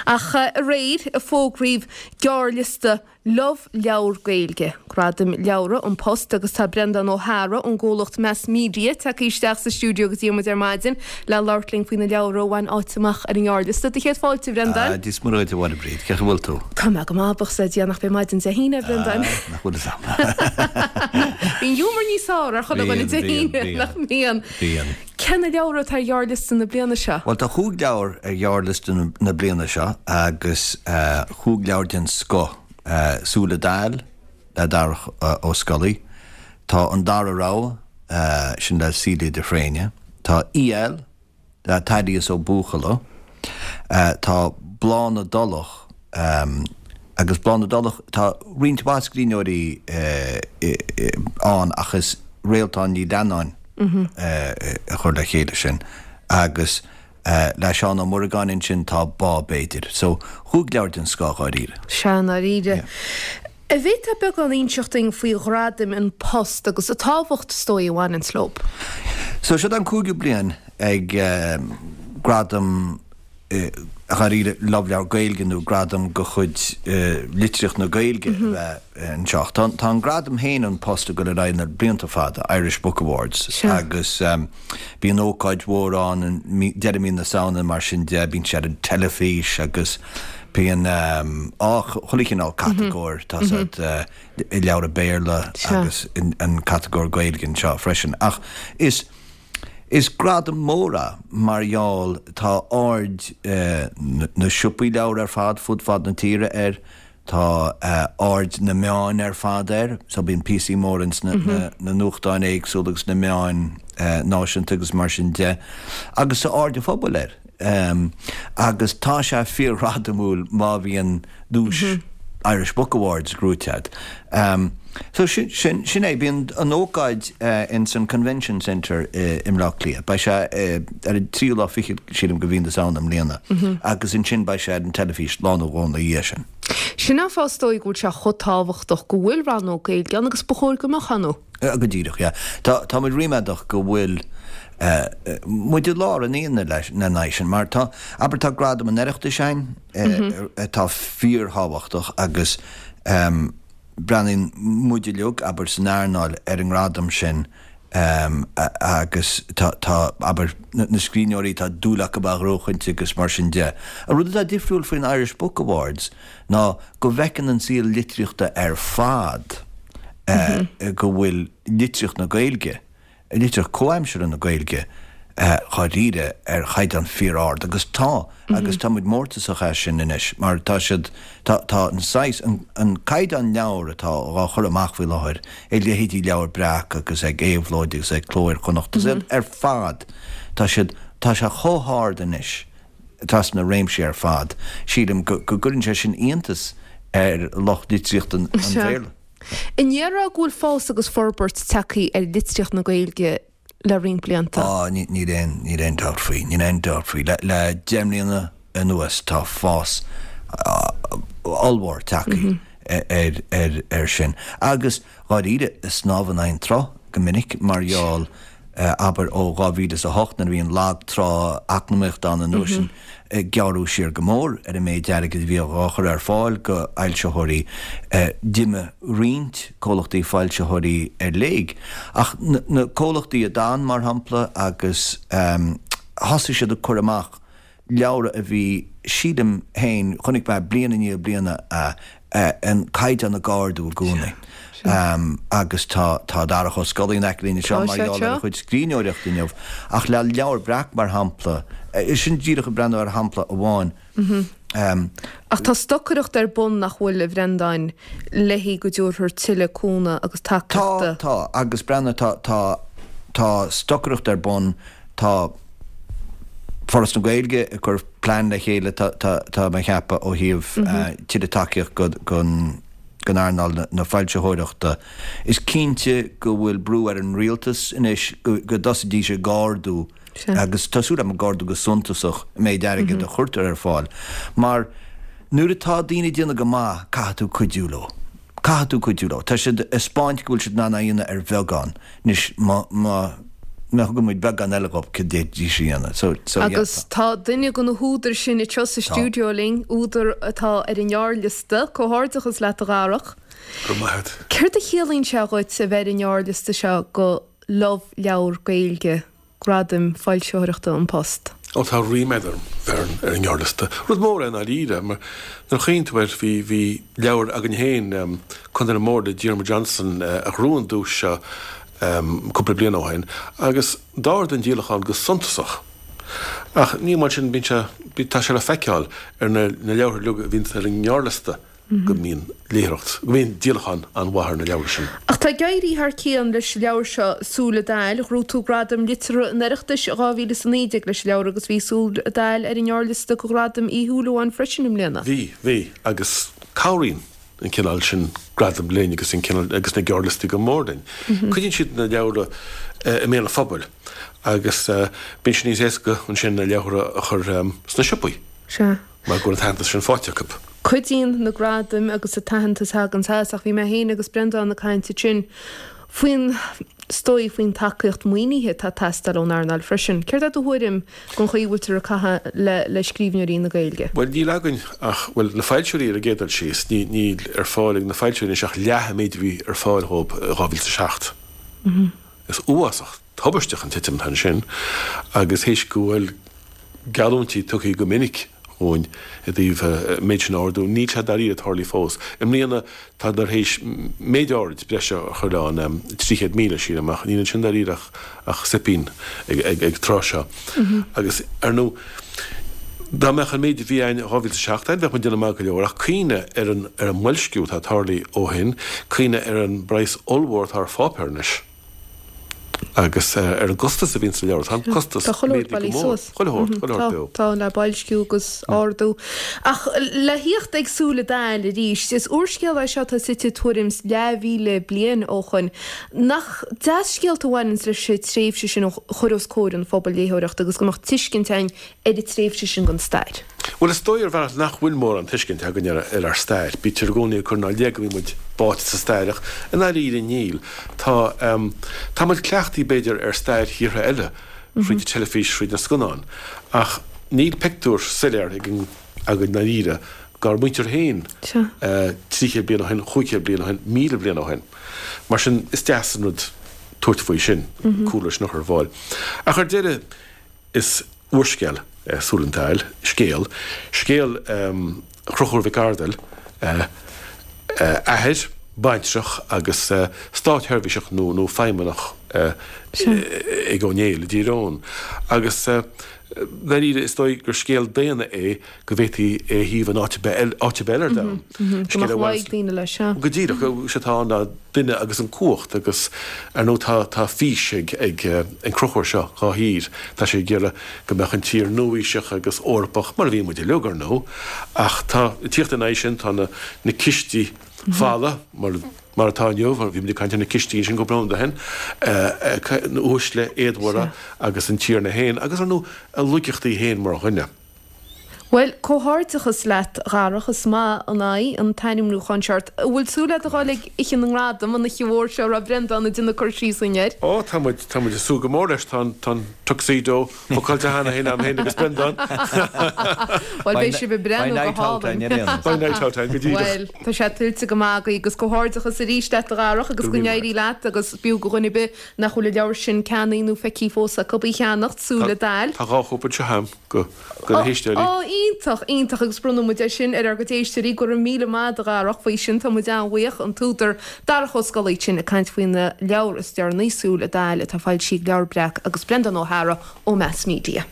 Ach aréir a fógraíodh gearrliosta Love Leabhar Gaeilge, Gradaim Leabhra An Post agus tá Breandán Ó hEára ón gcomhlacht Meas Media tagtha isteach sa stiúideo go dtí muid ar maidin le labhairt linn faoi na leabhra a bhain áit amach ar an ngearrliosta. Do chéad fáilte, a Bhreandáin. Ah, Dia is Muire dhuit, a Mháire Bríd. Cén chaoi a bhfuil tú? Tá mé go maith, buíochas le Dia nach b'é maidin Dé hAoine, a Bhreandáin. Ah, nach bhfuil fhios a'm. Bíonn giúmar níos fearr ar chuile dhuine Dé hAoine, nach mbíonn? Bíonn. Cé na leabhra atá ar ghearrliosta na bliana seo? Bhuel, tá chúig leabhar ar ghearrliosta na bliana seo agus chúig leabhar den scoth. Súile Daill le Darach Ó Scolaí, tá An Dara Rogha, sin le Celia de Fréine, tá EL le Thaddeus Ó Buachalla, tá Bláth na dTulach agus Bláth na dTulach, tá roinnt mhaith scríbhneoirí ann ach is Réaltán Ní Leannáin a chuir le chéile sin agus le Seán Ó Muireagáin ansin tá Bá B'fhéidir. So, chúig leabhar den scoth dháiríre. Sea, i ndáiríre. An bhféadfá beagán a inseacht dúinn faoi ghradaim An Post agus an tábhacht is dóigh a bhaineanns leo? So, seo an cúigiú bliain ag Gradam dháiríre Love Leabhar Gaeilge nó gradam de chuid litríocht na Gaeilge a bheith anseo. Tá tá an gradam féin An Post ag dul ar aghaidh na blianta fada, Irish Book Awards, agus bíonn ócáid mhór ann i deireadh mí na Samhna mar sin de, bíonn sé ar an teilifís agus bíonn á chuile chineál catagóir, tá siad leabhra Béarla agus an catagóir Gaeilge anseo freisin. Ach is Is gradam mór é mar gheall tá aird na siopaí leabhar ar fad fud fad na tíre air, tá aird na meáin ar fad air, so bíonn píosaí móra ins na nuachtáin éagsúla agus na meáin náisiúnta agus mar sin de, agus tá aird an phobail air. Agus tá sé fíorghradamúil má bhíonn duais Irish Book Awards gnóite agat. So sin, sin, sin é. Bíonn an ócáid ins an Convention Centre i mBleá Cliath. Beidh sé ar an tríú lá fichead, sílim, de mhí na Samhna i mbliana. Agus ansin beidh sé ar an teilifís lá nó dhó ina dhiaidh sin. Sin an fáth is dóigh go bhfuil sé chomh tábhachtach go bhfuil rannóg Gaeilge ann agus ba chóir go mbeadh ann. Go díreach, yeah. Tá, tá muid ríméadach go bhfuil muid i lár an aonaigh leis, lena aghaidh sin, mar tá, abair, tá Gradam an Oireachtais ann, atá fíorthábhachtach agus breathnaíonn muid uilig, abair, san earnáil ar an ngradam sin agus tá, tá, abair, na scríbhneoirí, tá dúil acu é a ghnóchaint agus mar sin de. An rud atá difriúil faoin Irish Book Awards ná go bhfeiceann an saol litríochta ar fad go bhfuil litríocht na Gaeilge, litríocht comhaimseartha na Gaeilge dháiríre ar chaighdeán fíor-ard agus tá, agus tá muid mórtasach as sin anois mar tá siad, tá, tá an saghas, an, an caighdeán leabhar atá á chur amach faoi láthair ag leithéidí Leabhar Breac agus ag Éabhlóid agus ag Cló Iar-Chonnacht agus ar fad, tá siad, tá sé chomh hard anois trasna na réimsí ar fad, sílim go, go gcuireann sé sin iontas ar lucht litríochta an Bhéarla. An ndéarfá go bhfuil fás agus forbairt tagtha ar litríocht na Gaeilge le roinnt blianta? Á, níl aon, níl aon dabht faoi, níl aon dabht faoi. Le, le 10 mbliana anuas tá fás ollmhór tagtha ar, ar, ar sin. Agus dháiríre, snámh in aghaidh an tsrutha go minic mar gheall, abair, ó 2008 nuair a bhí an lag trá eacnamaíochta ann an uair sin, gearradh siar go mór ar an méid airgid a bhí á chur ar fáil go fhoilsitheoirí. D'imigh roinnt comhlachtaí foilsitheoirí ar léig. Ach na comhlachtaí a d'fhan, mar shampla, agus thosaigh siad ag cur amach leabhra a bhí, sílim féin, chonaic mé bliain i ndiaidh bliana an caighdeán ag ardú i gcónaí. Agus tá tá Darach Ó Scolaí in aice linn anseo mar gheall ar a chuid scríbhneoireachta inniu. Ach le Leabhar Breac, mar shampla, sin díreach ag breathnú ar shampla amháin. Ach tá stocaireacht ar bun nach bhfuil, a Bhreandáin, léi go dtabharfar tuilleadh cúnamh agus tacaíochta. Tá, tá, agus breathnaigh, tá, tá, tá stocaireacht ar bun, tá Foras na Gaeilge ag cur plean le chéile, tá, tá, tá mé a cheapadh, ó thaobh tuilleadh tacaíocht go, gon, gon earnáil na foilsitheoireachta. Is cinnte go bhfuil brú ar an rialtas anois go, go dtosaídís ag ardú agus tá súil agam ag ardú go suntasach an méid airgid a chuirtear ar fáil mar nuair atá daoine ag déanamh go maith caithfidh tú cuidiú leo. Caithfidh tú cuidiú leo. Tá siad ag 'spáint go bhfuil siad in ann é a dhéanamh ar bheagán. Anois má, má. má thugann muid beagán eile dhóibh cad d'fhéadfaidís a dhéanamh. So, so yeah. Agus tá duine de na húdair sin anseo sa Tá. stiúideo linn, údar atá ar an ngearrliosta. Comhghairdeachas leat a Dharach. Go raibh maith agat. Céard a chiallaíonn sé dhuit a bheith ar an ngearrliosta seo do Love Leabhar Gaeilge, Gradaim Foilsitheoireachta An Post? Ó tá ríméad orm bheith ar an ngearrliosta. Rud mór é i ndáiríre, mar nuair a chuimhníonn tú air, bhí, bhí leabhar againn féin, Contae na mBord le Diarmuid Johnson, a ghnóthaigh an duais seo cúpla bliain ó shin, agus d'ardaigh an díolachán go suntasach. Ach ní amháin sin, bíonn sé, tá sé le feiceáil ar na leabhartha uilig a bhíonns ar an ngearrliosta. go mbíonn léitheoireacht, go mbíonn díolachán an-mhaith ar na leabhra sin. Ach tá ag éirí thar cionn leis an leabhar seo, Súil an Daill. Ghnóthaigh tú Gradam Liteartha an Oireachtais 2019 leis an leabhar agus bhí Súil an Daill ar an ngearrliosta do Ghradam Uí Shúilleabháin freisin i mbliana. Bhí, bhí, agus cabhraíonn an cineál sin gradam linn agus an cineál, agus na gearrliostaí go mór linn. Cuidíonn siad na leabhra i mbéal an phobail agus bíonn sé níos éasca ansin na leabhra a chur sna siopaí. Sea. mar go bhfuil an t-aitheantas sin faighte acu. Cuidíonn na gradaim agus an t-aitheantas a thagann as, ach bhí mé féin agus Breandán ag caint ansin faoin, is dóigh, faoin tacaíocht maoinithe atá ag teastáil ón earnáil freisin. Céard é do thuairim den chaoi a bhfuiltear ag caitheamh le le scríbhneoirí na Gaeilge? Bhuel, níl againn ach, bhuel, na foilsitheoirí ar an gcéad dul síos, ní, níl ar fáil ag na foilsitheoirí anois ach leath an méid a bhí ar fáil dhóibh i 2007. Is uafásach tubaisteach an titim atá ansin agus théis go bhfuil geallúintí tugtha go minic dhúinn i dtaobh an méid sin a ardú, níl sé dáiríre tarlaithe fós. I mbliana tádar théis méid áirid breise a chur ann, 300,000, sílim, ach níl ansin dáiríre ach soipín ag an tráth seo. Agus, ar ndóigh, dá mbeadh an méid a bhí ann i 2007 ann, bheadh muid ag déanamh maith go leor, ach cuimhnigh ar an ar an mboilsciú atá tarlaithe ó shin, cuimhnigh ar an bpraghas ollmhór atá ar pháipéar anois. Agus ar an gcostas a bhíonn sa leabhar, tá an costas Tá chuile shórt méadaithe go mór. bailithe suas. Chuile shórt, chuile shórt beo. Tá, le boilsciú agus ardú. Ach le thíocht ag Súil an Daill arís, is úrscéal é seo atá suite tuairim is leathmhíle bliain ó shoin. Nach deas scéalta a bhaineanns leis an tréimhse sin a chur os comhair an phobail léitheoireachta agus go mbeadh tuiscint againn ar an tréimhse sin den stair. Bhuel, is dóigh ar bhealach nach bhfuil mórán tuiscint againn ar ár stair. Bítear i gcónaí ag cur inár leith go mbíonn muid báite sa stair ach i ndáiríre níl. Tá, tá muid cleachtaithe b'fhéidir ar stair thíortha eile fríd an teilifís, fríd na scannáin ach níl pictiúr soiléir againn i ndáiríre dár muintir féin 300 bliain ó shin, 500 bliain ó shin, 1,000 bliain ó shin. Mar sin is deas an rud tabhairt faoi sin, cúlra sin a chur ar fáil. Ach ar deireadh, Is úrscéal é Súil an Daill, scéal, scéal Chonchúir Mhic Ardail, athair, baintreach agus státsheirbhíseach nó nó feidhmeannach ag Ó Néill i dTír Eoghain. Agus dáiríre is dóigh gur scéal daonna é go bhféadfaí é a shuíomh in áit ar bith eile, áit ar bith eile ar domhan. Go mbeadh luí ag daoine leis, sea. Go díreach, is é atá ann ná duine agus an cumhacht agus ar ndóigh tá tá fís ag ag an Conchúr seo dhá thír. Tá sé ag iarraidh go mbeadh an tír nua-aoiseach agus Eorpach, mar a bhí muid uilig ar ndóigh, ach tá ag tíocht ina aghaidh sin tá na na cistí fola mar mar atá inniu, bhí muid ag caint ar na cistí ansin cúpla nóiméad ó shin, na uaisle éadmhara agus an tiarna féin agus ar ndóigh a laigeachtaí féin mar dhuine. Bhuel, comhghairdeachas leat, a Dharach, is maith an aghaidh an t-ainmniúchán seo ort. An bhfuil súil agat a dhul ag Oíche na nGradam, an oíche mhór seo a raibh Breandán ag déanamh cur síos dúinn air? Ó, tá muid, tá muid ag súil go mór leis. Tá an, tá an tuxedo bookáilte cheana féin agam féin agus Breandán. Bhuel, beidh sibh ag breathnú go hálainn. Beidh night out againn, go díreach. Bhuel, tá sé tuillte go maith agaibh agus comhghairdeachas arís leat, a Dharach, agus go n-éirí leat agus b'fhiú do dhuine ar bith nach bhfuil an leabhar sin ceannaithe nó feicthe fós acu í a cheannacht, Súil an Daill. Tá dhá chóip anseo agam. go na héisteoirí. Ó, iontach, iontach agus bronnfaidh muid é sin ar ár gcuid éisteoirí. Go raibh míle maith agat a Dharach faoi sin, tá muid an-bhuíoch. An t-údar Darach Ó Scolaí ansin ag caint faoina leabhar is deireanaí, Súil an Daill, atá foilsithe ag Leabhar Breac agus Breandán Ó hEára ó Meas Media.